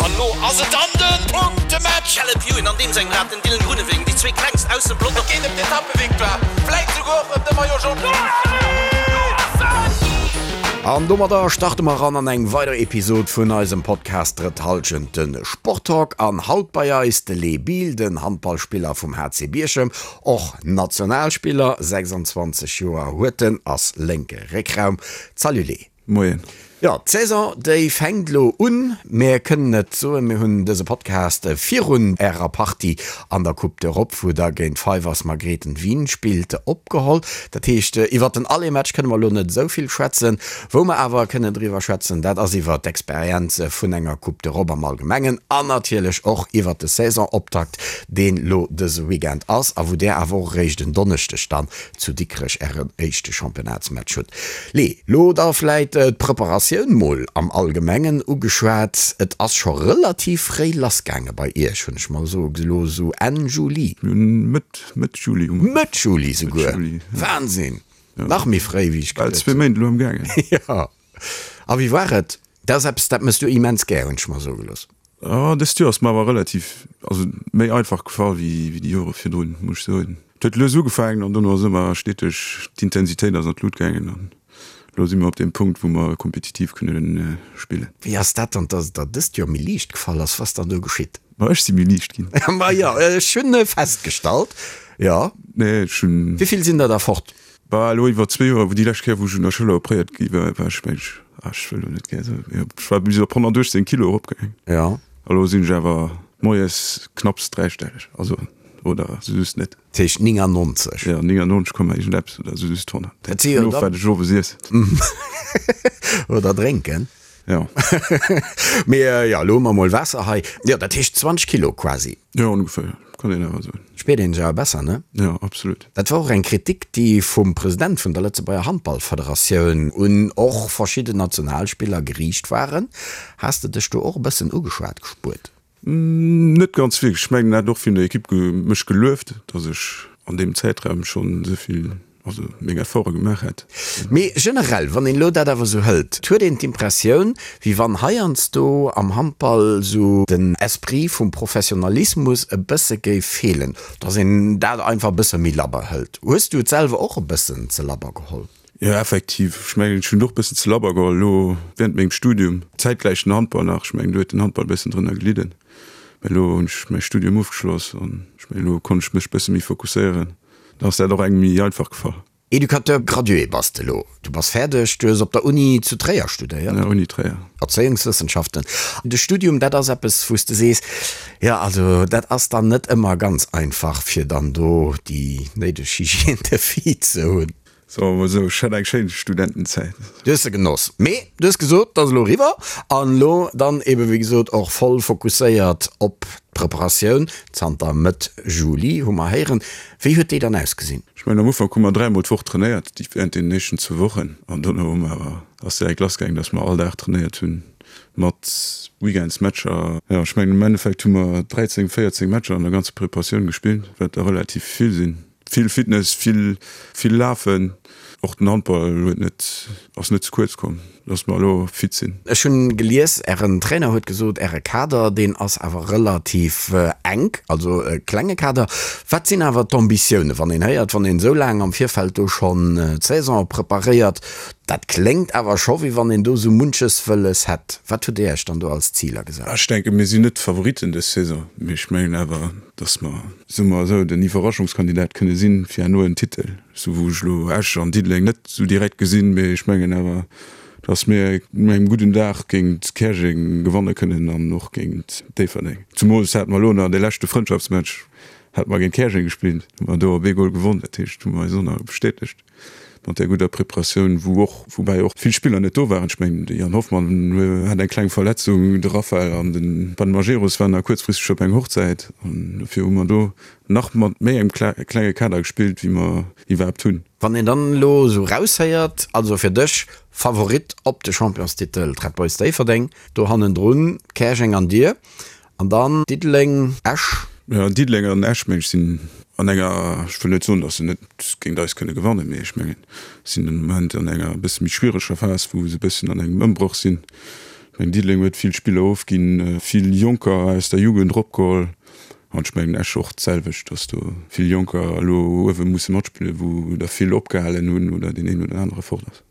An elo ass et dann de Punktematch! Caleb Ewan an deem sengem Rad, den Dylan Groenewegen, déi zwee klengst aus dem Pelotong. Et geet ëm d'Etappevictoire, vläit souguer och ëm de Maillot Jaune. An domadder starte mer eran an eng weider Episod vun eisem Podcast Drëtt Hallschent, de Sporttalk. An haut bei eis de Lee Biel, den Handballspiller vum HC Bierchem, och Nationalspiller, 26 Joer huet en, ass lénke Réckraum. Salut Lee. Moien. Jo, d'Saison déi fänkt elo un. Mir kënnen et soen, mir hunn dëse Podcast virun ärer Partie an der Coupe d'Europe, wou der géint Fivers Margrethen Wien spillt, opgeholl. Dat heescht, iwwert den Aller-Match kënne mer elo net esou vill schwätzen. Wou mer awer kënnen driwwer schwätzen, dat ass iwwert d'Experienze vun enger Coupe d'Europe am Allgemengen an natierlech och iwwert de Saisonoptakt, deen elo dëse Weekend ass a wou där awer och eréischt en Donneschdeg dann zu Dikrech ären éischte Championnatsmatch hutt. Lee, lo da vläit d'Preparatioun mol am Allgemengen ugeschwat. Et ass scho relativ fréi lassgaange bei Iech, hunn ech mer soe gelooss, esou Enn Juli. Mir hunn Mëtt, Mëtt Juli ugefaangen. Mëtt Juli souguer? Wahnsinn! Nach méi fréi wéi ech geduet hunn. Bal zwee Méint elo am gaangen. Jo. A wéi war et? Dat ass eppes, dat mëss du immens gär, hunn ech mer soe gelooss. Oh, dëst Joer ass mer awer relativ, also méi einfach gefall wéi déi Jore virdrun, muss ech soen. Et huet lues ugefaangen an dono ass ëmmer steteg, d'Intensitéit ass an d'Lut gaangen an elo si mer op deem Punkt, wou mer kompetitiv kënne spillen. Wéi ass dat dann, dass et der dëst Joer méi liicht gefall ass? Was dann do geschitt? Ma ech si méi liicht ginn. Ma jo, ech hunn festgestallt, jo. Nee, ech hunn. Wéi vill sinn der da fort? Bah, elo iwwer zwee Joer, wou déi lescht Kéier, wou ech un der Schëller opréiert gi war, war ech, meng ech, ah, ech wëll elo net gär soen, mee ech war bis op 118 Kilo eropgaangen. Jo. A lo sinn ech awer moies knapps dräistelleg, also, oder sou just net. Dat heescht 99? Jo, 99 Komma iergendeppes oder sou just 100. Dat si jo dann. Of wat ech owes iessen. Oder drénken. Jo. Mee jo, elo hu mer mol Waasser hei. Jo, dat heescht 20 Kilo quasi. Jo, ongeféier, kann een awer soen. Spiert een sech awer besser, ne? Jo, absolut. Dat war och eng Kritik, déi vum President vun der Lëtzebuerger Handballfederatioun un och verschidden Nationalspiller geriicht waren. Has de dech do och e bëssen ugeschwat gespuert? Net ganz wierklech. Ech mengen, en hat och vun der Ekipp mech gelueft, datt ech an deem Zäitraum schonn esou vill, also meng Efforte gemaach hätt. Mee generell, wann een elo dat awer esou hëlt, et huet een d'Impressioun, wéi wann heiansdo am Handball esou den Esprit vum Professionalismus e bësse géif feelen, datt een dat einfach e bësse méi labber hëlt. Hues du et selwer och e bëssen ze labber geholl? Jo, effektiv. Ech mengen, ech hunn och bëssen ze labber geholl elo während mengem Studium. Zäitgläich den Handball nach. Ech mengen, do huet den Handball e bëssen drënner gelidden. Mä elo hunn ech mäi Studium ofgeschloss an ech mengen, elo konnt ech mech bësse méi fokusséieren. Da ass dat och engem méi einfach gefall. Educateur gradué bass de elo. Du bass fäerdeg, du hues op der Uni zu Tréier studéiert. Ja, Uni Tréier. Erzéiungswëssenschaften. De Studium, dat ass eppes, wou s de sees, jo, also dat ass dann net ëmmer ganz einfach, fir dann do déi néideg Hygiène de vie ze hunn. Soe mer esou, ech hat eng schéin Studentenzäit. Du hues se genoss. Mee du hues gesot, et ass elo eriwwer an elo dann ebe wéi gesot och voll fokusséiert op d'Preparatioun. Zanter Mëtt Juli hu mer héieren. Wéi huet déi dann ausgesinn? Ech mengen am Ufank hu mer dräimol d'Woch trainéiert, déi während deenen éischten zwou Wochen. An dono hu mer awer, ass direkt lass gaangen, dass mer all Dag trainéiert hunn, mat Weekendsmatcher. Jo, ech mengen am Endeffekt hu mer 13, 14 Matcher an der ganzer Preparatioun gespillt, wat der relativ vill sinn. Vill Fitness, vill, vill Lafen. Och den Handball huet net, ass net ze kuerz komm, dass mer elo fit sinn. Ech hunn gelies, Ären Trainer huet gesot, Äre Kader, deen ass awer relativ enk, also e klenge Kader. Wat sinn awer d'Ambitiounen, wann een héiert, wann een esou laang am Virfeld do schonn d'Saison preparéiert, dat kléngt awer scho wéi wann een do esou munches wëlles hätt. Wat hutt Dir Iech dann do als Ziler gesat? Ech denken, mir sinn net d'Favoritten dës Saison, mee ech mengen awer, dass mer, soe mer esou, den Iwwerraschungskandidat kënne sinn fir herno en Titel, sou wou ech elo Esch an Diddeleng net sou direkt gesinn, mee ech mengen awer, dass mir un engem gudden Dag géint Käerjeng gewanne kënnen an och géint Déifferdeng. Zumools hate mer elo nach dee leschte Frëndschaftsmatch hate mer géint Käerjeng gespillt, hu mer do op ee Gol gewonn, dat heescht, hu mer eis och nach bestätegt. Mat där gudder Preparatioun, wou och, woubäi och vill Spiller net do waren. Ech mengen, de Yann Hoffmann hat eng kleng Verletzung, de Raphael an de Ben Majerus waren nach kuerzfristeg op eng Hochzäit an dofir hu mer do nach mat méi engem klenge Kader gespillt, wéi mer iwwerhaapt hunn. Wann een dann elo esou raushéiert, also fir dech Favorit op de Championstitel d'Red Boys Déifferdeng, do hannendrun Käerjeng an dir, An dann Diddeleng, Esch. Jo, Diddeleng an Esch, meng ech, sinn an enger, ech wëll net soen, datt se net géint eis kënne gewannen, mee ech mengen, sinn den Moment an enger e bësse méi schwiereger Phas, wou se e bëssen an engem Ëmbroch sinn. Ech mengen, Diddeleng huet vill Spiller ofginn, vill Jonker aus der Jugend eropgeholl. An ech mengen Esch och d'selwecht, datt do vill Jonker elo uewe musse matspillen, wou der vill opgehalen hunn oder deen een oder anere fort ass.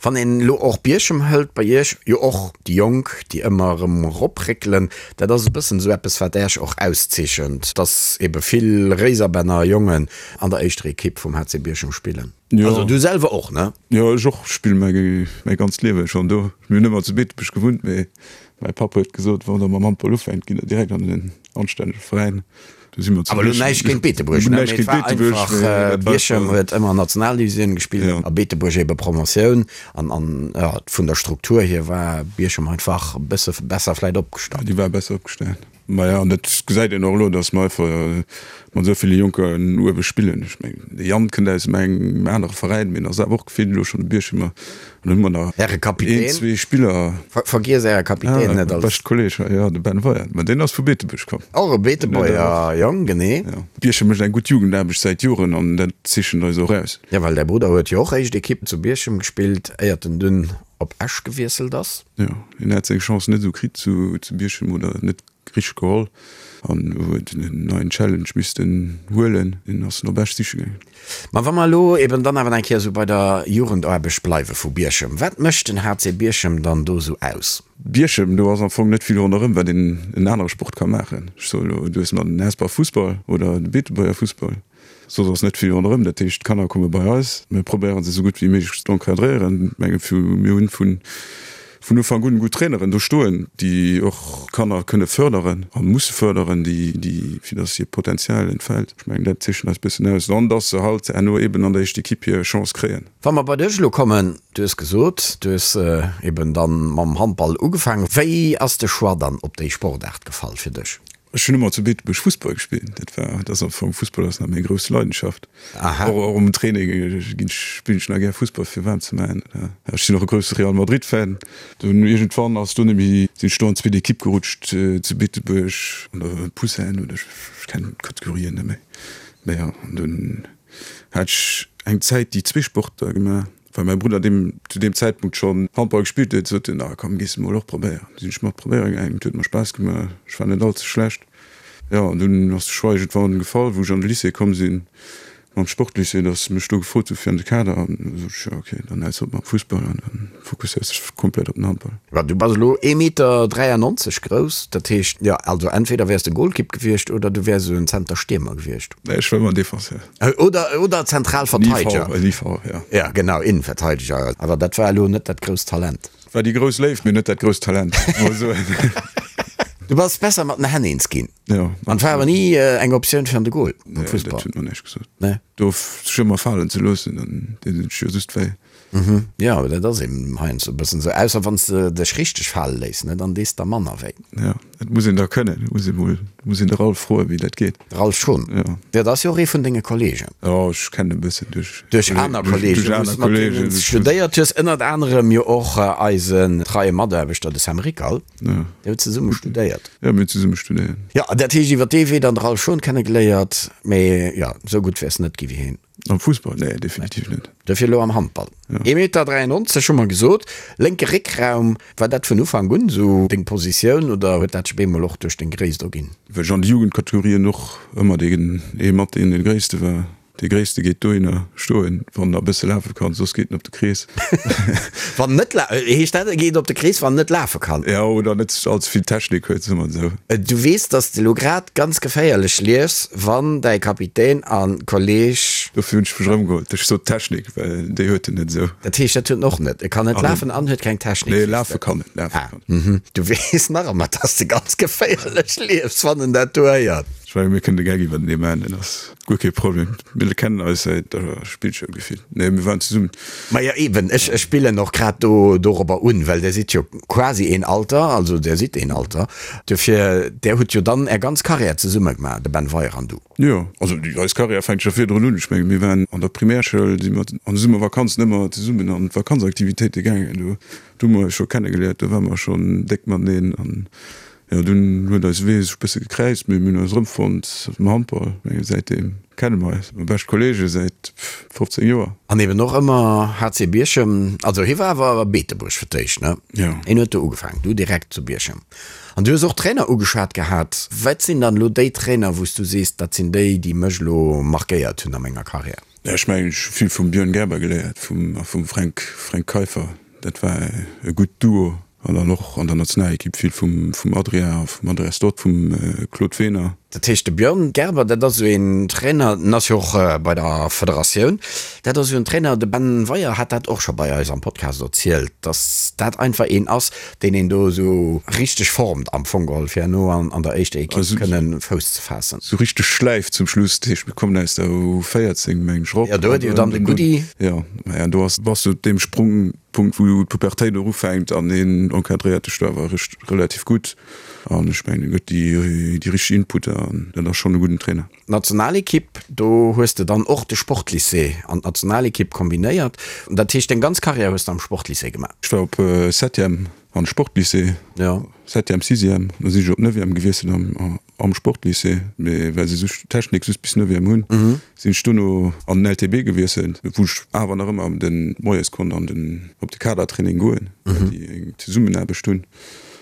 Wann een elo och Bierchem hëlt, bei Iech jo och déi Jonk, déi ëmmer erëm eropréckelen, dat ass e bëssen esou eppes, wat Iech och auszeechent, dass ebe vill Réiserbänner Jongen an der éischter Ekipp vum HC Bierchem spillen. Jo. Also du selwer och, ne? Jo, ech och spille mäi mäi ganzt Liewe schonn do. Mir hunn ëmmer zu Beetebuerg gewunnt, mee mäi Papp huet gesot, wann der mam Handball ufänkt, gitt der direkt an en anstännege Veräin. Do si mer zu Awer elo näischt géint Beetebuerg, ne? Mee et war einfach, Bierchem huet ëmmer Nationaldivisioun gespillt a Beetebuerg ebe Promotioun. An, an jo, vun der Struktur hier war Bierchem einfach e bësse besser vläit opgestallt. Déi war besser opgestallt. Maja, an dat gesäit een och elo, datt mer einfach mat esou ville Jonken uewe spillen. Ech mengen, de Yann kënnt aus engem anere Veräin, mee en ass awer och vill elo schonn e Bierchemer. An dann hu mer nach Äre Kapitän. een, zwee Spiller. Vergiess Äre Kapitän net als. Beschte Kolleg, jo, de Ben Weyer. Mä deen ass vu Beetebuerg komm. Och e Beetebuerger Jong, genee. Jo. Bierchem mécht eng gutt Jugendaarbecht säit Joren an dat zeechent eis och aus. Jo, well däi Brudder huet jo och éischt Ekipp zu Bierchem gespillt, éiert en dunn op Esch gewiesselt ass. Jo, hien hat seng Chance net esou kritt zu Bierchem oder net richteg geholl an huet en neien Challenge missten huelen. Hien ass en op Esch siche gaangen. Ma wa mer elo eben dann awer eng Kéier esou bei der Jugendaarbecht bleiwe vu Bierchem, wat mécht den HC Bierchem dann do esou aus? Bierchem, do ass am Fong net vill ronderëm, wat een en anere Sport ka maachen. Ech soe elo, du hues nach den Hesper Fussball oder de Beetebuerger Fussball. Soss ass net vill ronderëm. Dat heescht, d'Kanner komme bei eis. Mir probéiere se esou gutt wéi méiglech z'encadréieren. Ech menge mir hunn vun vun Ufank un gutt Traineren do stoen, déi och d'Kanner kënne fërderen a musse fërderen, déi déi fir datt hiert Potenzial entfält. Ech mengen, dat zeechent eis bëssen aus. An datt se halt herno eeben an der éischter Ekipp hir Chance kréien. Wa mer bei dech elo kommen, du hues gesot, du hues eeben dann mam Handball ugefaangen. Wéi ass de Choix dann op déi Sportaart gefall fir dech? Ech hunn ëmmer zu Beetebuerg Fussball gespillt. Dat war, dat ass am Fong, Fussball ass nach meng grouss Leidenschaft. Aha. Och, och um Training ginn ech, spillen ech nach gär Fussball fir waarm ze maachen. Ech sinn och e grousse Real Madrid Fan. Dunn iergendwann ass do net méi, sinn ech do an d'zweet Ekipp gerutscht zu Beetebuerg an der Poussins oder ech kennen d'Kategorien net méi. Mä jo, an dunn hat ech eng Zäit déi zwee Sporter gemaach. Well mäi Brudder deem zu deem Zäitpunkt schonn Handball gespillt huet, sot en, Ah komm, gees de mol och probéieren. Du sinn ech mat probéiere gaangen, et huet mer Spaass gemaach, ech war net all ze schlecht. Jo, an dunn ass de Choix iergendwann gefall, wou ech an de Lycée komm sinn, mam Sportlycée, datt se mech do gefrot hu fir an de Kader. An du sot ech, jo ok, dann häls op mam Fussball an dann fokusséiers dech komplett op den Handball. Mä du bass elo ee Meter 93 grouss, dat heescht, jo, also entweder wäers de Golkipp gewiescht oder du wäers esou en Zenterstiermer gewiescht. Nee, ech war ëmmer Defenseur. Oder, oder Zentralverteideger. En IV, ja. Ja, genau, Innenverteideger. Awer dat war elo net dat grousst Talent. War déi grouss Léift, mee net dat grousst Talent, mol soen. Du bass besser mat den Hänn eens ginn. Jo. An war awer ni eng Optioun fir an de Goal am Fussball. Nee, dat huet mer näischt gesot. Nee. Do sech ëmmer falen ze loossen, dann deet een sech jo just wéi. Mhm, jo, awer dat ass eben heiansdo e bëssen esou, ausser wann s de dech richteg fale léiss, ne, dann dees der manner wéi. Jo, dat muss een da kënnen, muss ee mol, muss een de Ralph froen, wéi dat geet. De Ralph Schon? Jo. Jo, dat ass jo och ee vun denge Kollegen. Jo, ech kennen e bëssen duerch. Duerch aner Kollegen, wou s de mat deenen studéiert hues, ënnert anerem jo och eisen treie Mataarbechter, de Sam Rickal. Jo. Dir hutt zesumme studéiert. Jo, mir hunn zesumme studéiert. Jo, dat heescht iwwer dee Wee dann de Ralph Schon kennegeléiert, mee jo, esou gutt wäers net gi wéi heen. Am Fussball? Nee, definitiv net. Dofir elo am Handball. Ee Meter 93 hu mer gesot. Lénke Réckraum, war dat vun Ufank un esou deng Positioun oder huet dat sech op eemol och duerch deng Gréisst erginn? Well ech an de Jugendkategorien och ëmmer deen ee mat deen dee Gréisste war. Dee Gréisste geet dohinner stoen, wann en e bësse lafe kann, soss geet en op de Krees. Wann en net la, heescht dat e geet op de Krees, wann en net lafe kann? Jo, oder net all ze vill Technik huet, soe mer esou. Du weess, dass de elo grad ganz geféierlech liefs, wann däi Kapitän a Kolleg. Dofir hunn ech mech erëmgeholl. Ech sot Technik, well déi huet en net esou. Dat heescht, dat huet en och net. E kann net lafen an huet keng Technik. Nee, lafe kann en, lafe kann en. Ah, mhm. Du weess nach ëmmer, dass de ganz geféierlech liefs, wann en dat do héiert. Ech mengen, mir kënnen de Gag iwwertenee maachen, dat ass guer kee Problem. Mir kennen eis säit der Spillschoul gefillt. Nee, mir waren zesummen. Majo eben, ech spillen och grad do dorobber un, well där sidd jo quasi een Alter, also där sidd een Alter, dofir där hutt jo dann är ganz Carrière zesumme gemaach, de Ben Weyer an du. Jo, also déi eis Carrière fänkt scho virdrun un. Ech mengen, mir waren an der Primärschoul, si mer an de Summervakanzen ëmmer zesummen an d'Vakanzaktivitéite gaangen. Do hu mer eis scho kennegeléiert, do ware mer schonn déck mateneen an. Jo, dunn huet eise Wee sech e bësse gekräizt, mee mir hunn eis erëmfonnt am Handball. Ech menge säitdeem kenne mer eis, mer bescht Kolleege säit 15 Joer. An eben och ëmmer HC Bierchem, also hie war awer Beetebuerg fir d'éischt, ne? Jo. Hien huet do ugefaangen, du direkt zu Bierchem. An du hues och Trainer ugeschwat gehat. Wat sinn dann elo déi Trainer, wou s du sees, dat sinn déi, déi mech elo markéiert hunn a menger Karriär? Jo, ech mengen, ech hu vill vum Björn Gerber geléiert, vum a vum Fränk, Fränk Keiffer. Dat war e gutt Duo. An dann och an der Nationalekipp vill vum, vum Adrien a vum Andreas Dodt, vum Claude Wehner. Dat heescht, de Björn Gerber, dat ass esou een Trainer, den ass jo och bei der Federatioun, dat ass esou en Trainer, de Ben Weyer hat dat och scho bei eis am Podcast erzielt, datt dat einfach een ass, deen een do esou richteg formt am Fong geholl, fir herno an der éischter Ekipp kënnen Fouss ze faassen. Esou richteg schläift zum Schluss. Dat heescht, mir kommen aus der U14, meng ech, erop. Jo, do huet jo dann de Goody. Jo, maja, do ass, bass du op deem Sprungpunkt, wou d'Pubertéit och ufänkt an hien encadréiert dech do awer relativ gutt an ech mengen, en gëtt déi richteg Inputter an dat ass schonn e gudden Trainer. D'Nationalekipp, do hues de dann och de Sportlycée an d'Nationalekipp kombinéiert. Dat heescht, deng ganz Karriär hues de am Sportlycée gemaach? Ech war op Septième an Sportlycée, Septième, Sixième, da sinn ech op Neuvième gewiesselt am Sportlycée, mee well se just Technik just bis Neuvième hunn, sinn ech dono an den LTB gewiesselt, wou ech awer nach ëmmer de moies konnt an den op de Kadertraining goen, well déi eng Zesummenaarbecht hunn.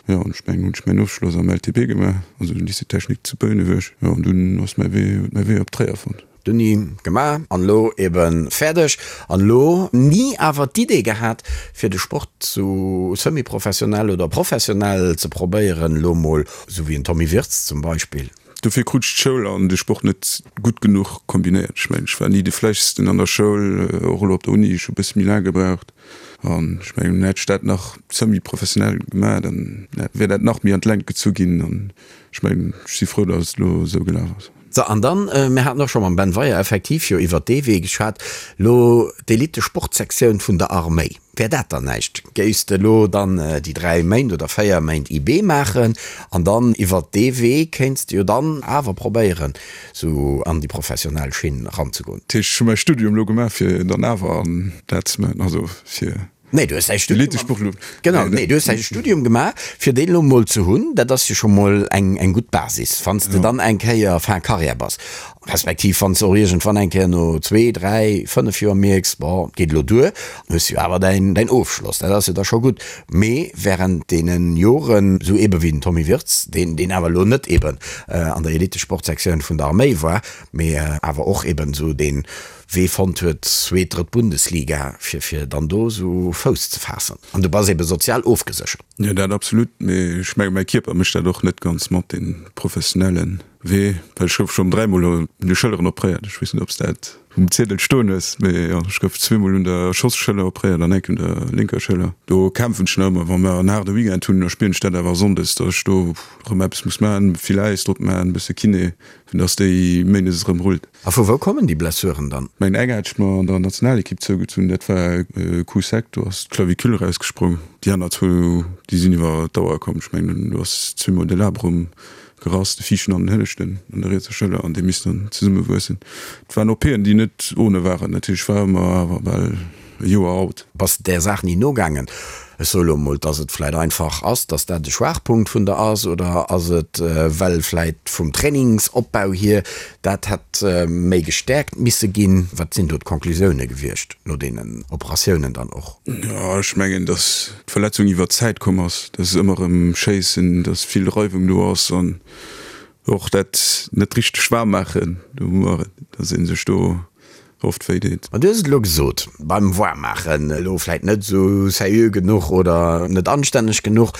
Jo, an ech mengen, hunn ech mäin Ofschloss am LTB gemaach, also den Lycée technique zu Bouneweg. Jo, an dunn ass mäi Wee, huet mäi Wee op Tréier fonnt. D'Uni gemaach an elo eben fäerdeg. An elo ni awer d'Idee gehat, fir de Sport sou semi-professionell oder professionell ze probéieren, elo mol sou wéi en Tommy Wirtz zum Beispill. Dofir krut ech d'Schoul an de Sport net gutt genuch kombinéiert. Ech mengen, ech war ni de Fläissigsten an der Schoul, och elo op der Uni, ech hu e bësse méi laang gebraucht. An ech mengen, hätt ech dat nach semi-professionell gemaach, dann wär dat nach méi an d'Längt gezu ginn. An ech mengen, ech si frou, datt et elo esou gelaf ass. So, an dann, mir haten och scho mam Ben Weyer effektiv jo iwwert dee Wee geschwat, elo d'Elite-Sportsektioun vun der Arméi. Wär dat dann näischt? Géifs de elo dann déi 3 Méint oder 4 Méint IB maachen an dann iwwert dee Wee kéints de jo dann awer probéieren sou an déi professionell Schinn ranzegoen? Dat heescht, ech hu mäi Studium elo gemaach fir dann awer an dat ze maachen, also fir Nee, du hues däi Studium, genau, nee, du hues däi Studium gemaach fir deen elo mol ze hunn. Dat ass jo scho mol eng eng gutt Basis, wann s de dann eng Kéier fin Carrière bass. Respektiv wann s de och iergendwann eng Kéier no zwee, dräi, fënnef Joer mierks, bon, et geet elo duer, hues de jo awer däin, däin Ofschloss. Dat ass jo da scho gutt. Mee wärend deene Joren, esou eebe wéi den Tommy Wirtz, deen, deen awer elo net eeben an der Elitesportsektioun vun der Arméi war, mee awer och eeben esou dee Wee fonnt huet, zweet, drëtt Bundesliga, fir, fir dann do esou Fouss ze faassen. An du bass eebe sozial ofgeséchert. Jo, dat absolut. Mee ech menge mäi Kierper mécht dat och net ganz mat, dee professionellen. Wee, well ech gouf schonn dräimol un de Schëlleren opréiert. Ech weess net, ob s dat um Ziedel stoen hues, mee jo, ech gouf zweemol un der Schoss-Schëller opréiert an enk un der lénker Schëller. Do kämpfen ech nach ëmmer. Wa mer en haarde Weekend hunn, da spieren ech dat awer sonndes, datt ech do erëm eppes muss maachen, vill Äis drop maachen, e bësse Kiné, fir datt déi méindes erëm rullt. A vu wou kommen déi Blessuren dann? Meng eng hat ech mer an der Nationalekipp zougezunn, dat war e Coup sec, do ass d'Clavicule erausgesprong. Déi aner zwou, déi sinn iwwer d'Dauer komm. Ech mengen, do ass zweemol de Labrum Gerass, de viischten an den hënneschten an der rietser Schëller, an déi missten dann zesumme wuessen. Et waren OPen, déi net ohne waren natierlech, war ëmmer awer bal e Joer out. Bass de där Saach ni nogaangen? Ech soe lo emol, dass et vläit einfach ass, dass dat e Schwaachpunkt vun der ass, oder ass et, well vläit vum Trainingsopbau hier dat hätt méi gestäerkt misse ginn? Wat sinn do d'Conclusioune gewiescht no deenen Operatiounen dann och? Jo, ech mengen, dass d'Verletzung iwwer d'Zäit komm ass, dass ëmmer erëm Schéissen, dass vill Reiwung do ass an och dat net richteg waarm maachen, do hu mer et, dass ee sech do oft wéi deet. Ma du hues et elo gesot, beim Waarmmaachen, elo vläit net esou seriö genuch oder net anstänneg genuch.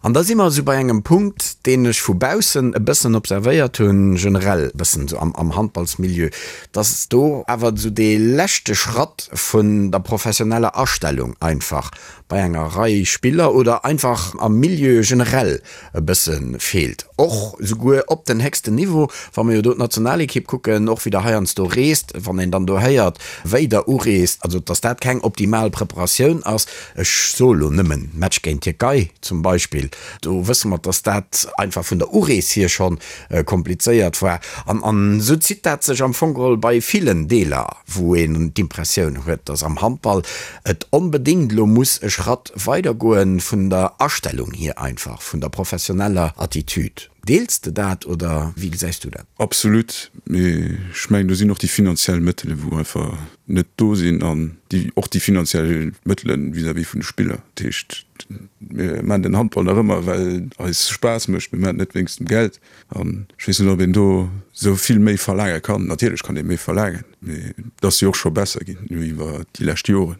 An da si mer esou bei engem Punkt, deen ech vu baussen e bëssen observéiert hunn, generell e bëssen esou am Handballsmilieu, dass do awer esou dee leschte Schratt vun der professioneller Astellung einfach bei enger Rei Spiller oder einfach am Milieu generell e bësse feelt, och souguer op den héchsten Niveau, wa mer jo do d'Nationalekipp kucken, och wéi der heiansdo reest, wann een dann do héiert. preparéiert, wéi der ureest, also dass dat keng optimal Preparatioun ass. Ech soe lo nëmmen Match géint d'Tierkei zum Beispill, do wësse mer, dass dat einfach vun der Urees hier schonn komplizéiert war. An an esou zitt dat sech am Fong geholl bei villen Deeler, wou een d'Impressioun huet, dass am Handball et onbedéngt elo muss e Schratt weidergoen, vun der Astellung hier einfach, vun der professioneller Attitude. Deels de dat oder wéi gesäis du dat? Absolut, mee ech mengen do sinn och déi finanziell Mëttele wou einfach net do sinn an déi och déi finanziell Mëttele vis-à-vis vun de Spiller. Dat heescht mir maachen den Handball nach ëmmer well et eis Spaass mécht, mir maachen et net wéinst dem Geld an ech weess net ob een do esou vill méi verlaange kann. Natierlech kann ee méi verlaangen, mee et ass jo och scho besser ginn iwwer déi lescht Joren.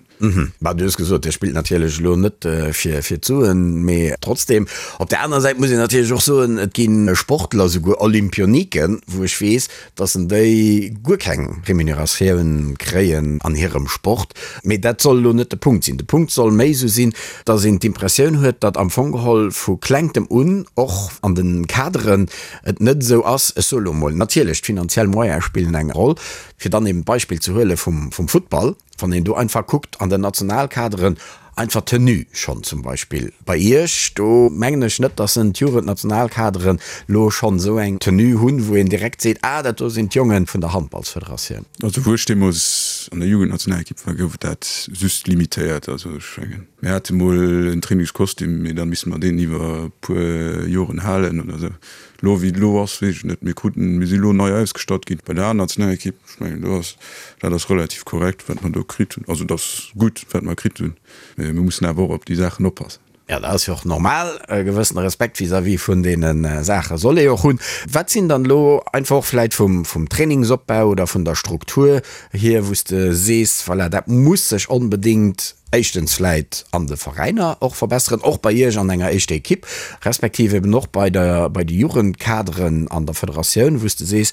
Bah, du hues gesot, Dir spillt natierlech elo net fir d'Suen, mee trotzdem. Op där anerer Säit muss een natierlech och soen, et gi Sportler, souguer Olympioniken, wou ech weess, datt en déi guer keng Remuneratioun kréien an hirem Sport. Mee dat soll elo net de Punkt sinn. De Punkt soll méi esou sinn, datt een d'Impressioun huet, datt am Fong geholl vu Klengtem un och an de Kaderen et net esou ass, ech soe elo emol, natierlech d'finanziell Moyene spillen eng Roll, fir dann eben d'Beispill ze huele vum Futtball, Wann een do einfach kuckt an den Nationalkaderen, einfach d'Tenue schonn zum Beispill bei Iech, do mengen ech net, dass en d'Jugendnationalkaderen lo schonn esou eng Tenue hunn, wou een direkt seet, ah dat do sinn d'Jonge vun der Handballsfederatioun. Also wou ech deemools an der Jugendnationalekipp war, gouf et dat just limitéiert. Also ech mengen, mir hate mol en Trainingskostüm, mee da misste mer deen iwwer e puer Joren halen oder esou. Elo wéi et elo ass, weess ech net. Mir kruten, mir si elo nei ausgestatt ginn bei der A-Nationalekipp. Ech mengen, do ass, dat ass relativ korrekt, wat mer do kritt hunn. Also, et ass gutt, wat mer kritt hunn, mä mir mussen awer och op déi Saachen oppassen. Jo, dat ass jo och normal. E gewëssene Respekt vis-à-vis vun deene Saache soll ee och hunn. Wat sinn dann elo einfach och vläicht vum, vum Trainingsopbau oder vun der Struktur hier, wou s de sees, voilà, dat muss sech onbedéngt éischtens vläicht an de Veräiner och verbesseren, och bei Iech an enger éischter Ekipp, respektiv eben och bei der, bei de Jugendkaderen an der Federatioun, wou s de sees,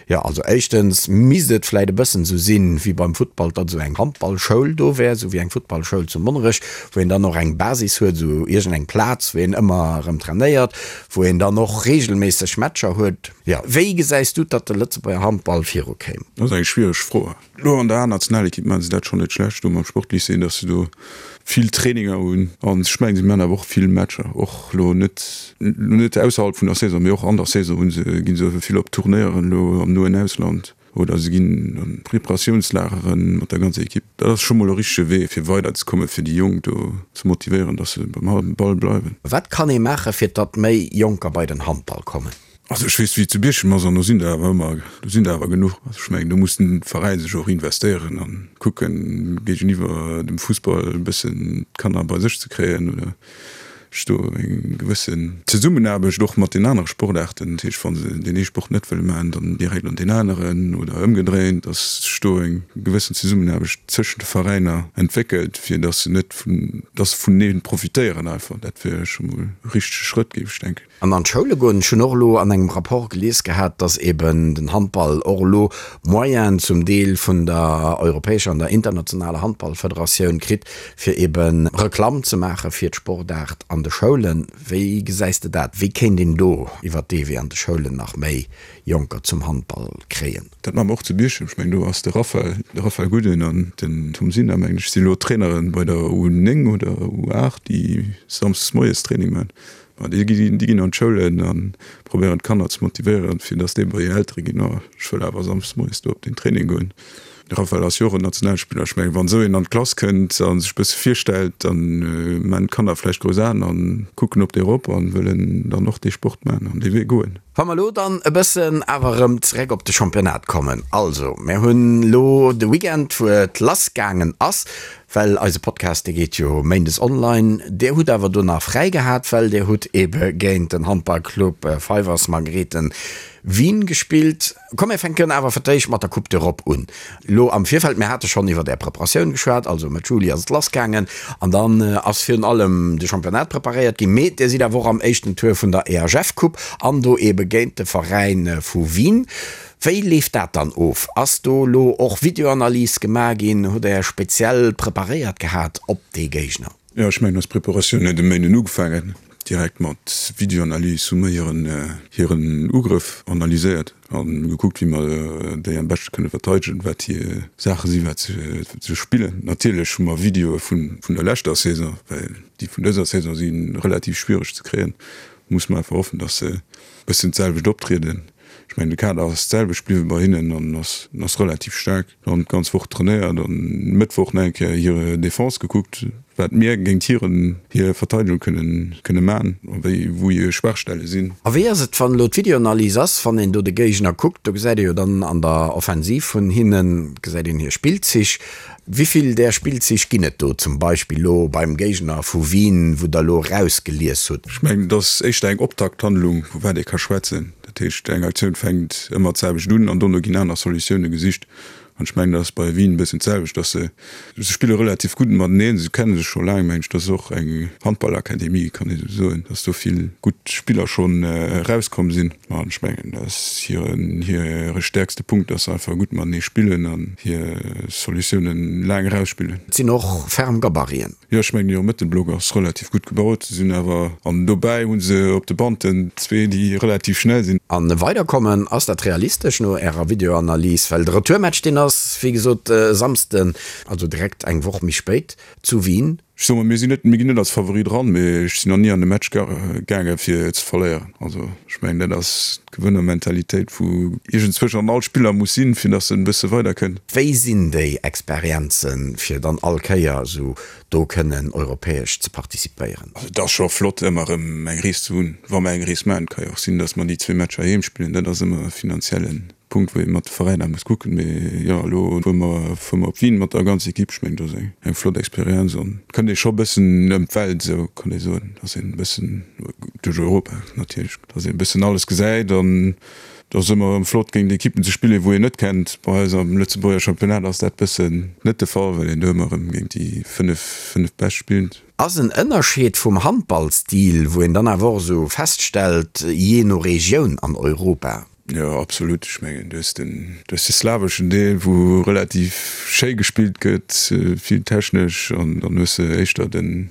Jo, also éischtens misst et vläit e bëssen esou sinn, wéi beim Futtball, datt esou eng Handballschoul do wär, esou wéi eng Futtballschoul zu Monnerech, wou een dann och eng Basis huet, esou iergend eng Plaz, wou een ëmmer erëm trainéiert, wou een dann och reegelméisseg Matcher huet. Jo, wéi gesäis du, datt de Lëtzebuerger Handball virukéim? Dat ass eng schwiereg Fro. Elo an der A-Nationalekipp maache se dat schonn net schlecht do mam Sportlycée, datt se do vill Traininger hunn. An ech mengen, si maachen awer och vill Matcher, och elo net elo net ausserhalb vun der Saison, mee och an der Saison hu se, gi se vill op Turnéieren elo am noen Ausland oder se ginn an Preparatiounslagere mat der ganzer Ekipp. Dat ass scho mol e richtege Wee fir weiderzekommen, fir déi Jonk do ze motivéieren, datt se beim Ball bleiwen. Wat kann ee maachen, fir datt méi Jonker bei den Handball kommen? Also ech weess wéi et zu Bierchem ass an do sinn der awer ëmmer, do sinn der awer genuch. Also ech mengen do muss den Veräin sech och investéieren an kucken géigeniwwer dem Fussball e bëssen d'Kanner bei sech ze kréien oder sech do eng gewëssen Zesummenaarbecht och mat den anere Sportaarten, dat heescht wa se deen ee Sport net wëlle maachen, dann direkt an deen aneren oder ëmgedréint, datt sech do eng gewëssen Zesummenaarbecht tëschent de Veräiner entwéckelt, fir datt se net vun, datt se vunenee profitéieren einfach. Dat wier scho mol e richtege Schrëtt, géif ech denken. An an d'Schoule goen. Ech hunn och elo an engem Rapport gelies gehat, dass eben den Handball och elo Moyenen zum Deel vun der europäescher an der internationaler Handballfederatioun kritt, fir ebe Reklamm ze maache fir d'Sportaart an de Schoulen. Wéi gesäis de dat? Wéi kéint een do iwwert dee Wee an de Schoulen nach méi Jonker zum Handball kréien? Dat maache mer och zu Bierchem. Ech mengen, do ass de Raphael, de Raphael Guden an den Tom Sinner, mengen ech, si elo Trainere bei der U9 oder U8, déi samsdes moies Training maachen. Ma déi ginn, déi ginn an d'Schoulen a probéieren d'Kanner ze motivéieren, fir datt déi bei hir Eltere ginn, Oh, ech wëll awer samschdes moies do op den Training goen. De Raphael ass jo och en Nationalspiller. Ech mengen, wann esou een an d'Klass kënnt a sech e bësse virstellt, da maachen d'Kanner vläicht grouss Aen a kucken op dee erop a wëllen dann och dee Sport maachen an dee Wee goen. Wa mer elo dann e bëssen awer erëm zeréck op de Championnat kommen. Also, mir hunn elo de Weekend, wou et lassgaangen ass, Well eise Podcast, dee geet jo méindes online. Dir hutt awer do nach fräi gehat, well Dir hutt ebe géint den Handballclub Fivers Margrethen Wien gespillt. Komm mir fänken awer fir d'éischt mat der Coupe d'Europe un. Lo am Virfeld, mir hate schonn iwwer Är Preparatioun geschwat, also Mëtt Juli ass et lassgaangen an dann ass virun allem de Championnat preparéiert ginn. Mee Dir sidd awer och am éischten Tour vun der EHF-Coupe an do ebe géint de Veräin vu Wien. Wéi leeft dat dann of? Ass do elo och Videoanalys gemaach ginn? Hutt Der speziell preparéiert gehat op dee Géigner? Jo, ech mengen, eis Preparatioun huet e Méinden ugefaangen. direkt mat Videoanalys hu mer hiren hiren Ugrëff analyséiert a gekuckt, wéi mer déi am beschte kënne verteidegen, wat hir Saache sinn, wat se spillen. Natierlech hu mer Videoe vun der leschter Saison, well déi vun dëser Saison si relativ schwiereg ze kréien. Musse mer einfach hoffen, datt se e bëssen d'selwecht optrieden. Ech mengen, de Kader ass d'selwecht bliwwe bei hinnen an ass ass relativ staark. Dann d'ganz Woch trainéiert an Mëttwoch nach eng Kéier hir Defense gekuckt, wat mir géint hiren hir Verteidegung kënnen kënne man a wéi wou hir Schwaachstelle sinn. A wéi ass et, wann elo d'Videoanalyse ass, wann een do de Géigner kuckt, do gesäit ee jo dann an der Offensiv vun hinnen, gesäit een hir Spillzich. Wivill där Spillzich ginn et do zum Beispill elo beim Géigner vu Wien, wou Der elo erausgelies hutt? Ech mengen, et ass éischter eng Optakthandlung, vu wat ee ka schwätzen. Dat heescht, eng Aktioun fänkt ëmmer d'selwecht un an dono ginn aner Solutioune gesicht. An ech mengen, dat ass bei Wien e bëssen d'selwecht, dass se, se spille relativ gutt mateneen, se kenne sech scho laang, mengen ech. Dat ass och eng Handballakademie, kann ee sou soen, dass do vill gutt Spiller schonn erauskomm sinn. An ech mengen, dat ass hiren, hire stäerkste Punkt, dass se einfach gutt matenee spillen an hir Solutiounen laang erausspillen. Et sinn och ferm Gabariten. Jo, ech mengen, hire Mëttelblock ass relativ gutt gebaut. Se sinn awer, an dobäi hu se op de Banten zwee, déi relativ schnell sinn. An weiderkommen, ass dat realistesch no Ärer Videoanalys? Well de Retourmatch, deen ass, wéi gesot, e Samsden, also direkt eng Woch méi spéit zu Wien. Ech soe mol, mir sinn net, mir ginn net als Favorit eran, mee ech sinn nach ni an e Match gaange fir ze verléieren. Also ech mengen, dat ass d'Gewënnermentalitéit, wou iergendzwousch an all Spiller muss sinn, fir datt en e bësse weiderkënnt. Wéi sinn déi Experienzen, fir dann all Kéier esou do kënnen europäesch ze participéieren? Also et ass scho flott ëmmer erëm eng Rees ze hunn, wa mer eng Rees maachen. Et ka jo och sinn, datt mer déi zwee Matcher heem spillen, dat ass ëmmer e finanziellen Punkt wou ee mat de Veräiner muss kucken, mee jo elo fuere mer fuere mer op Wien mat der ganzer Equipe, ech mengen dat ass eng eng flott Experienz an kënnt ee scho bëssen ëm d'Welt esou kann ee soen, dass een e bëssen duerch Europa natierlech, dass een e bëssen alles gesäit an et ass ëmmer erëm flott géint Equippen ze spillen wou een net kennt. Bei eis am Lëtzebuerger Championnat ass dat bëssen net de Fall, well een do ëmmer erëm géint déi 5 5 bescht spillt. Ass en Ënnerscheed vum Handballstil, wou een dann awer och esou feststellt, jee no Regioun an Europa? Jo, absolut. Ech mengen, du hues den, du hues de slaweschen Deel, wou relativ schéi gespillt gëtt, vill technesch, an dann hues de éischter den,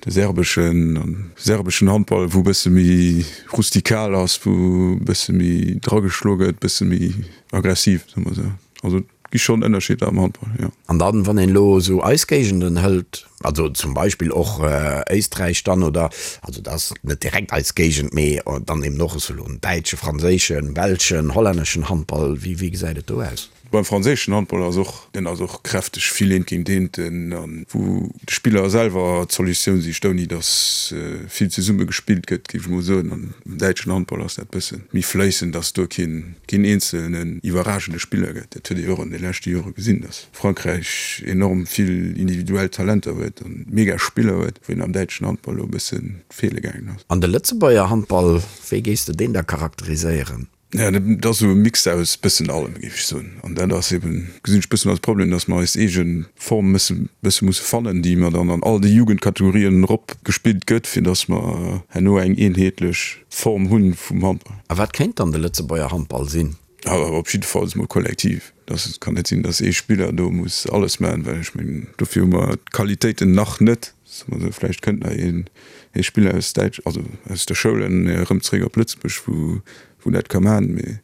de serbeschen, an serbeschen Handball, wou e bësse méi rustikal ass, wou e bësse méi drageschloe gëtt, e bësse méi aggressiv, soe mer esou. Also et gi schonn Ënnerscheeder am Handball, jo. An dann, wann een elo esou eis Géigenden hëlt, also zum Beispill och Éisträich dann, oder, also dat ass net direkt eis Géigend, mee dann eben och esou elo en däitsche, franséischen, belschen, hollänneschen Handball, wéi, wéi gesäit et do aus? Beim franséischen Handball ass och, deen ass och kräfteg, vill eent géint eent, an wou de Spiller selwer d'Solutioun sicht, ouni datt vill zesumme gespillt gëtt, géif ech mol soen. An am däitschen Handball ass dat bësse méi fléissend, datt do keen, keen eenzelnen iwwerragende Spiller gëtt. Dat huet ee jo och an de leschte Jore gesinn, datt Frankräich enorm vill individuell Talenter huet an mega Spiller huet, wou een am däitschen Handball elo e bësse feele gaangen ass. An de Lëtzebuerger Handball, wéi géifs de deen da charakteriséieren? Jo, dat ass esou e Mix aus bëssen allem, géif ech soen. An dat ass eben, gesinn ech bëssen als Problem, datt mer eis eege Form mësse bësse musse fannen, déi mer dann an all de Jugendkategorien erop gespillt gëtt, fir datt mer herno eng eenheetlech Form hunn vum Handball. A wat kéint dann de Lëtzebuerger Handball sinn? Op jiddefalls mol kollektiv. Et kann net sinn, datt ee Spiller do muss alles maachen, well ech mengen, dofir hu mer d'Qualitéiten nach net. Soe mer esou, vläicht kënnt nach een ee Spiller aus Däitsch, also aus der Schoul erëm zeréck op Lëtzebuerg, wou wou dat ka maachen, mee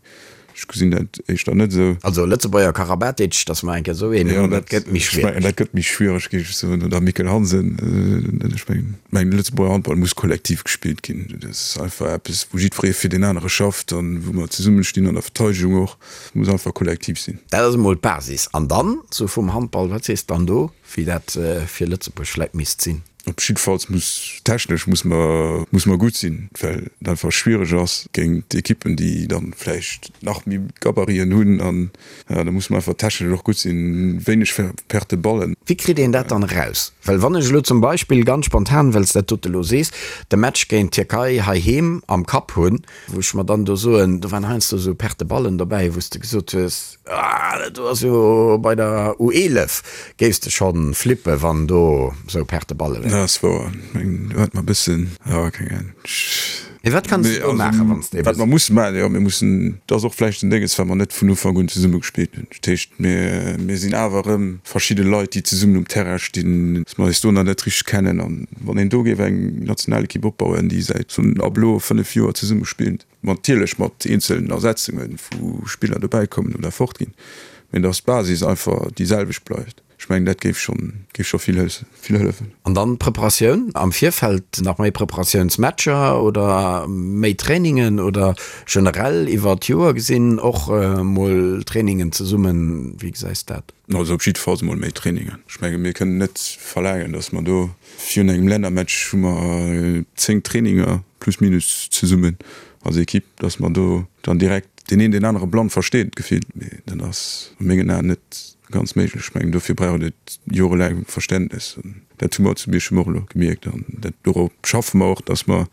ech gesinn dat éischter net esou. Also Lëtzebuerger Karabatic, datt mer eng Kéier esou een hunn, dat gëtt méi schwiereg. Dat gëtt méi schwiereg, géif ech soen, oder Mikkel Hansen. Ech mengen, de Lëtzebuerger Handball muss kollektiv gespillt ginn. Dat ass einfach eppes, wou jiddweree fir deen anere schafft an wou mer zesummestinn an der Verteidegung och. Et muss einfach kollektiv sinn. Dat ass emol d'Basis. An dann, esou vum Handball, wat sees de dann do, wéi dat fir Lëtzebuerg vläicht misst sinn? Op jiddefalls muss technesch muss mer muss mer gutt sinn, well et einfach schwiereg ass géint Ekippen, déi dann vläicht nach méi Gabariten hunn an da muss mer einfach technesch och gutt sinn, wéineg Perte Ballen. Wéi kritt een dat dann eraus? Well wann ech elo zum Beispill ganz spontan, well s dat dote elo sees, de Match géint d'Tierkei heiheem am Kapp hunn, wou ech mer dann do soen, do waren heiansdo esou Perte Ballen dobäi, wou s de gesot hues, Ah, dat do ass jo bei der U11 géifs de schonn flippe wann do sou Perte Balle wären. Dat ass wouer. Meng do hat mer bëssen, jo keng Ahnung. Mee wat kanns de do maachen, wann s de Wat mer musse maachen, jo, mir mussen, dat ass och vläicht en Dénges, well mer net vun Ufank un zesumme gespillt hunn. Dat heescht, mir, mir sinn awer erëm verschidde Leit, déi zesummen um Terrain stinn, dass mer eis do nach net richteg kennen. An wann een do géif eng Nationalekipp opbauen, déi säit ab elo 5 Joer zesumme spillt, natierlech mat eenzelen Ersetzungen, wou Spiller dobäikommen oder fortginn, mee dass d'Basis einfach déi selwecht bleift. Ech mengen, dat géif schonn, géif scho vill vill hëllefen. An dann d'Preparatioun am Virfeld, nach méi Preparatiounsmatcher oder méi Trainingen oder generell iwwer d'Joer gesinn och mol Trainingen zesummen? Wéi gesäis de dat? Also op jiddefalls emol méi Trainingen. Ech menge mir kënnen net verlaangen, datt mer do virun engem Lännermatch hu mer 10 Traininger plus minus zesummen als Ekipp, datt mer do dann direkt deen een deen anere blann versteet gefillt. Mee dat ass a mengen Aen net Ganz méiglech. Ech mengen, dofir brauch et jorelaang Verständnes. An dat hu mer zu Bierchem och elo gemierkt. An dat, dorop schaffe mer och, dass mer,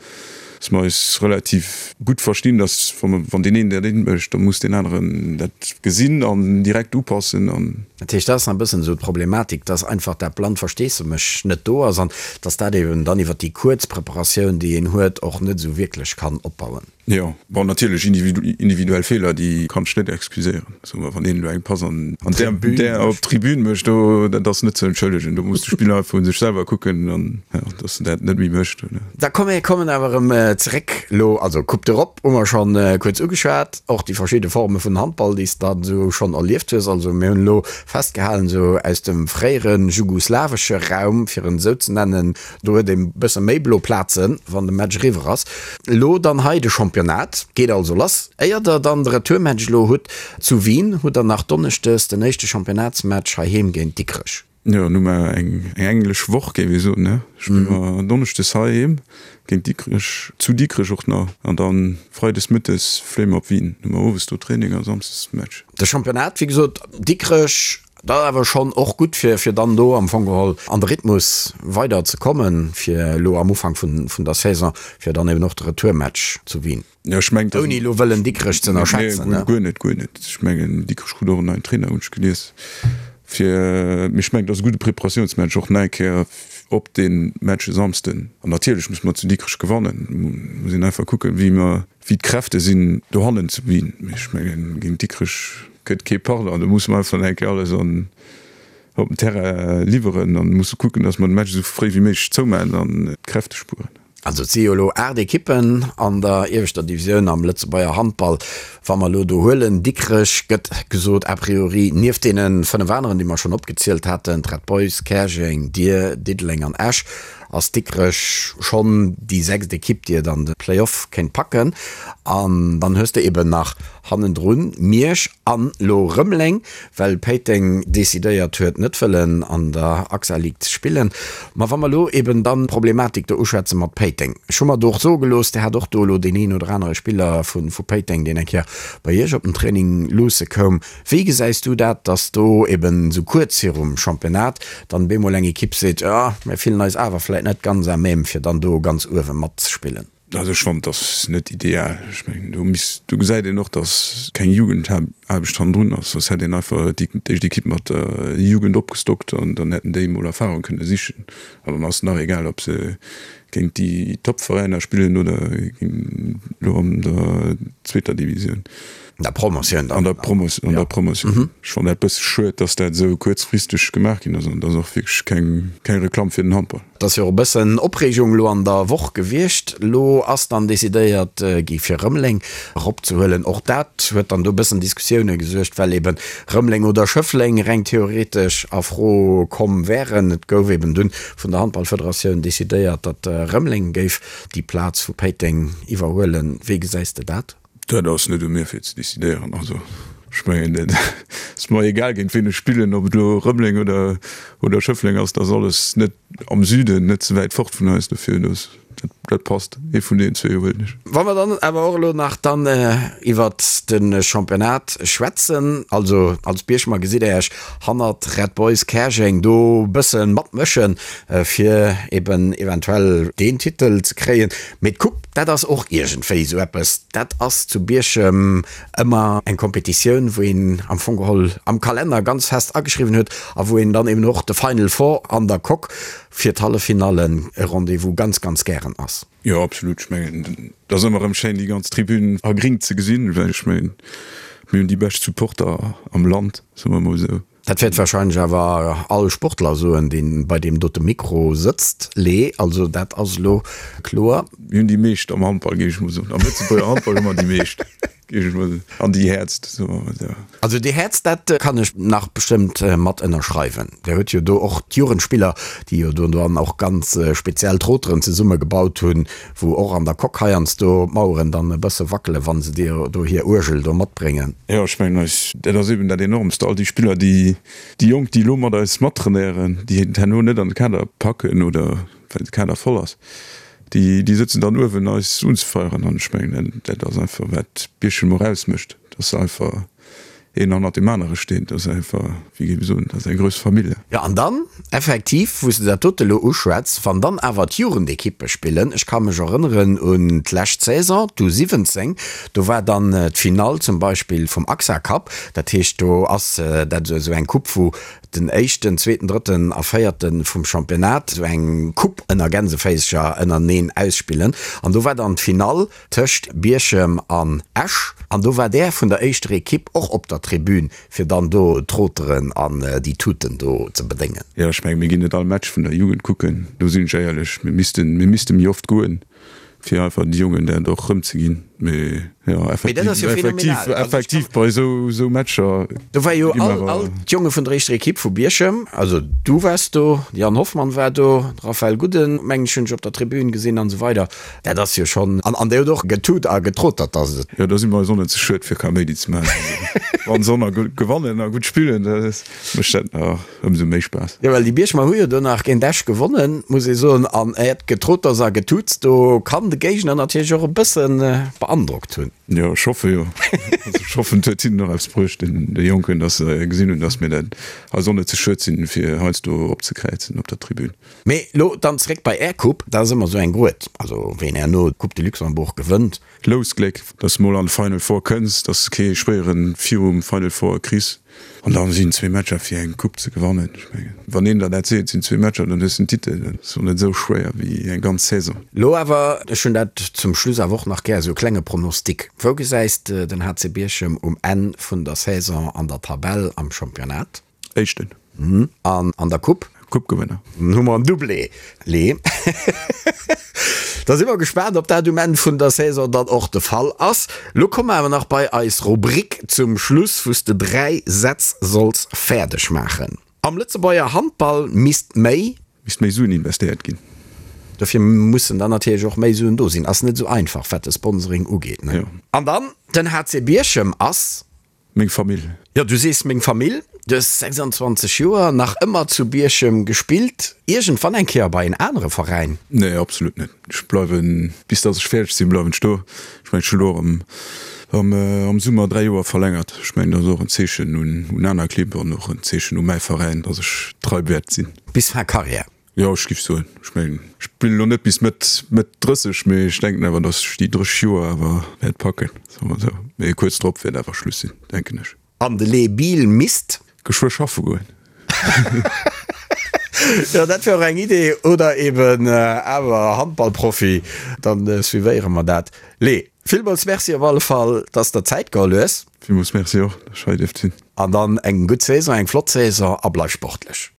dass mer eis relativ gutt verstinn, dass wa mer, wann deen een dat eent mécht, da muss deen aneren dat gesinn an direkt upassen. An. Dat heescht, dat ass nach e bëssen esou d'Problematik, dass einfach dat blannt Versteessemech net do ass an dass dat eben dann iwwert déi kuerz Preparatioun, déi een huet, och net esou wierklech kann opbauen. Jo, bon natierlech individuell Feeler, déi kann ech net excuséieren. Soe mer, wann een elo eng Pass an där op d'Tribün mécht, do, dat ass net ze entschëllegen. Do muss de Spiller einfach un sech selwer kucken an, jo, datt en dat net méi mécht. Da komm, mir kommen awer erëm zeréck elo, also Coupe d'Europe hu mer schonn kuerz ugeschwat, och déi verschidde Forme vun Handball, déi s de dann esou schonn erlieft hues. Also mir hunn elo festgehalen, esou aus dem fréiere jugoslawesche Raum, fir en esou ze nennen, Do huet ee bësse méi blo Plazen, wann de Match eriwwer ass. Elo dann hei de Championnat geet also lass. Éier der dann de Retourmatch elo hutt zu Wien, hutt der nach donneschdes den éischte Championnatsmatch heiheem géint Dikrech. Jo, dann hu mer eng englesch Woch, géif ee soen, ne? Spille mer donneschdes heiheem géint Dikrech, zu Dikrech och nach, an da freides mëttes fléie mer op Wien. Hu mer owes do Training a samsdes Match. De Championnat, wéi gesot, Dikrech Dat ass awer schonn och gutt, fir fir dann do am Fong geholl an de Rhythmus weider ze kommen, fir elo am Ufank vun vun der Saison, fir dann eben och de Retourmatch zu Wien. Jo, ech mengen, Ouni elo wëllen Dikrech ze ënnerschätzen, ne? Guer net, guer net. Ech mengen, Dikrech krut och en neien Trainer, hunn ech gelies, fir, mee ech mengen, et ass e gudde Preparatiounsmatch och nach eng Kéier op dee Match e Samsden. An natierlech musse mer zu Dikrech gewannen. Muss een einfach kucken, wéi mer, wéi d'Kräfte sinn dohannen zu Wien. Mee ech mengen, géint Dikrech gëtt kee Pardon. Do musse mer einfach nach eng Kéier alles an op den Terrain liwweren an musse kucken, datt mer de Match esou fréi wéi méiglech zoumaachen an d'Kräfte spueren. Also et si jo elo 8 Ekippen an der ieweschter Divisioun am Lëtzebuerger Handball. Wa mer elo do huelen, Dikrech gëtt gesot a priori nieft deene 5 aneren, déi mer schonn opgezielt haten, d'Red Boys, Käerjeng, Dir, Diddeleng an Esch, ass Dikrech schonn déi sechst Ekipp, déi et an de Play-off kéint packen. An dann hues de eben nach hannendrun Miersch an lo Rëmeleng, well Péiteng decidéiert huet, net wëllen an der AXA League ze spillen. Ma wa mer lo eben dann d'Problematik do uschwätze mat Péiteng, ech hu mer do och soe gelooss, Dir hat och do elo deen een oder anere Spiller vu Péiteng, deen eng Kéier bei Iech op den Training luusse koum. Wéi gesäis du dat, datt do eben esou kuerz virum Championnat dann bemol eng Ekipp seet, jo, mir fillen eis awer vläit net ganz à même, fir dann do ganz uewe matzespillen? Also ech fannen, et ass net ideal. Ech mengen, do misst, do gesäit een och, datt keng Jugendaarbecht hannendrun ass, soss hätt een einfach déi éischt Ekipp mat der Jugend opgestockt an dann hätten déi emol Erfahrung kënne sichen. An dann ass et nach egal, ob se géint déi Topveräiner spillen oder elo an der zweeter Divisioun. An der Promotioun dann. An der Promotioun, an der Promotioun. Ech fannen dat bësse schued, dass dat esou kuerzfristeg gemaach ginn ass an et ass och wierklech keng, keng Reklamm fir den Handball. Et ass jo och e bëssen Opreegung elo an der Woch gewiescht. Elo ass dann decidéiert gi fir Rëmeleng eropzehuelen. Och dat huet dann do e bëssen Diskussioune gesuergt, well eben Rëmeleng oder Schëffleng reng theoretesch a Fro komm wären. Et gouf eben dunn vun der Handballfederatioun decidéiert, datt Rëmeleng géif déi Plaz vu Péiteng iwwerhuelen. Wéi gesäis de dat? Dat ass net u mir fir ze decidéieren. Also ech mengen dat ass mer egal géint ween ech spillen, ob et elo Rëmeleng oder oder Schëffleng ass, dat ass alles net am Süden, net ze wäit fort vun eis. Dofir dat dat passt. Ee vun deenen zwee huelen ech. Wa mer dann awer och elo nach dann iwwert de Championnat schwätzen, also als Bierchemer gesitt Der Iech hannert Red Boys Käerjeng do bësse matmëschen, fir eben eventuell deen Titel ze kréien. Mee d'Coupe, dat ass och iergendwéi esou eppes, dat ass zu Bierchem ëmmer eng Competitioun, wou een am Fong geholl am Kalenner ganz fest ageschriwwen huet a wou een dann eben och de Final Four an der Coque fir d'Halleffinallen e Rendez-vous ganz, ganz gären. erklären ass. Jo, absolut. Ech mengen, et ass ëmmer erëm schéin, déi ganz Tribün a gring ze gesinn, well ech mengen, mir hunn déi bescht Supporter am Land, soe mer emol esou. Dat wäert wahrscheinlech awer all Sportler soen, dee bei deem dote Mikro sëtzt, Lee. Also dat ass elo kloer. Mir hunn déi meescht am Handball, géif ech mol soen. Am Lëtzebuerger Handball hu mer déi meescht, géif ech mol soen. An déi häertst, soe mer mol esou. Also déi häertst, dat kann ech nach bestëmmt mat ënnerschreiwen. Dir hutt jo do och d'Jugendspiller, déi jo do dann och ganz speziell Troteren zesumme gebaut hunn, wou och an der Coque heiansdo d'Maueren dann e bësse wackelen, wa se dir do hir Uergel do matbréngen. Jo, ech mengen eis, dat ass eben dat Enormst, all déi Spiller, déi, déi Jonk, déi elo mat eis mattrainéieren, déi et herno net an de Kader packen oder well de Kader voll ass, déi, déi sëtzen dann uewen eis unzefeieren. An ech mengen, dat ass einfach wat Bierchem och ausmécht, dass se einfach een hannert deem anere steet. Dat ass einfach, wéi géif ech soen, dat ass eng grouss Famille. Jo, an dann effektiv, wou s de dat dote elo uschwätz, wann dann awer d'Jugendekippe spillen, ech ka mech erënneren un d'lescht Saison, d'U 17, do war dann d'Finall zum Beispill vum AXA Cup, dat heescht do ass dat esou eng Coupe, wou den éischten, zweeten, drëtten a véierte vum Championnat esou eng Coupe ënner Gänseféischer ënnereneen ausspillen an do war dann d'Finall Tëscht Bierchem an Esch, an do war där vun der éischter Ekipp och op der Tribün, fir dann do d'Troteren an déi Tuten do ze bedéngen. Jo, ech mengen, mir ginn net all Match vun der Jugend kucken, do sinn ech éierlech. Mir missten, mir misste méi oft goen, fir einfach de Jongen dat och erëmzeginn. Mee jo, effektiv, effektiv, effektiv bei esou, esou Matcher. Do war jo all, all d'Jonge vun der éischter Ekipp vu Bierchem, also du waars do, de Jan Hoffmann war do, de Raphaël Gudden, mengen ech, hunn ech op der Tribün gesinn an esou weider. Dat ass jo schonn, an an déi huet och getut a getrotert, dass et. Jo, do si mer eis och net ze schued fir Kaméidi ze maachen. Wann se och nach gutt gewannen a gutt spillen, da mécht dat nach ëmsou méi Spaass. Jo, well déi Bierchemer hu jo do nach géint Esch gewonnen, muss ee soen. An äert Getroters a Getuts do kann de Géigner natierlech och e bësse beandrockt hunn. Jo, ech hoffe jo. Also ech hoffen, et huet hinnen och eppes bruecht, den de Jonken, dass se gesinn hunn, dass mir dat eis och net ze schued sinn, fir heiansdo opzekräizen op der Tribün. Mee lo dann zréck bei Är Coupe, dat ass ëmmer sou eng Gruet, also ween herno d'Coupe de Luxembourg gewënnt. Lousgléck, dass de mol an d'Final Four kënns, dass de kee schwéieren virum Final Four kriss an dann sinn zwee Matcher fir eng Coupe ze gewannen. Ech mengen, wann een der dat seet, sinn zwee Matcher, dann hues de den Titel. Dat ass och net esou schwéier wéi eng ganz Saison. Lo awer, ech hunn dat zum Schluss awer och nach gär, esou e klenge Pronostic. Wou gesäis de den HC Bierchem um Enn vun der Saison an der Tabell am Championnat? Éischten. An an der Coupe? Coupe-Gewënner. Dann hu mer en Doublé, Lee. Da si mer gespaant, ob dat um Enn vun der Saison dann och de Fall ass. Lo komme mer awer nach bei eis Rubrik zum Schluss, wou s de 3 Sätz solls fäerdeg maachen. Am Lëtzebuerger Handball misst méi. Misst méi Suen investéiert ginn. Dofir mussen dann natierlech och méi Suen do sinn. Ass net esou einfach, wat de Sponsoring ugeet, ne? Jo. An dann, den HC Bierchem ass. Meng Famill. Jo, du sees meng Famill. Du hues 26 Joer, nach ëmmer zu Bierchem gespillt. Iergendwann eng Kéier bei en anere Veräin? Nee, absolut net. Ech bleiwen, bis dass ech fäerdeg sinn, bleiwen ech do. Ech mengen, ech hu lo am, am Summer 3 Joer verlängert. Ech mengen, dat ass och en Zeechen un, un aner Clibb an och en Zeechen u mäi Veräin, dass ech trei wäert sinn. Bis fin Carrière? Jo, ech giff soen, ech mengen, ech spillen elo net bis Mëtt, Mëtt 30, mee ech denken awer, datt ech déi 30 Joer awer wäert packen, soe mer esou. Mee kuerz drop wäert awer Schluss sinn, denken ech. An de Les Bill misst. Geschwë schaffe goen. Jo, dat wär och eng Idee. Oder eben awer Handballprofi, dann suivéiere mer dat. Les, villmools Merci op alle Fall, dass der Zäit geholl hues. Villmools Merci och, dass ech hei dierft sinn. An dann eng gutt Saison, eng flott Saison a bleif sportlech.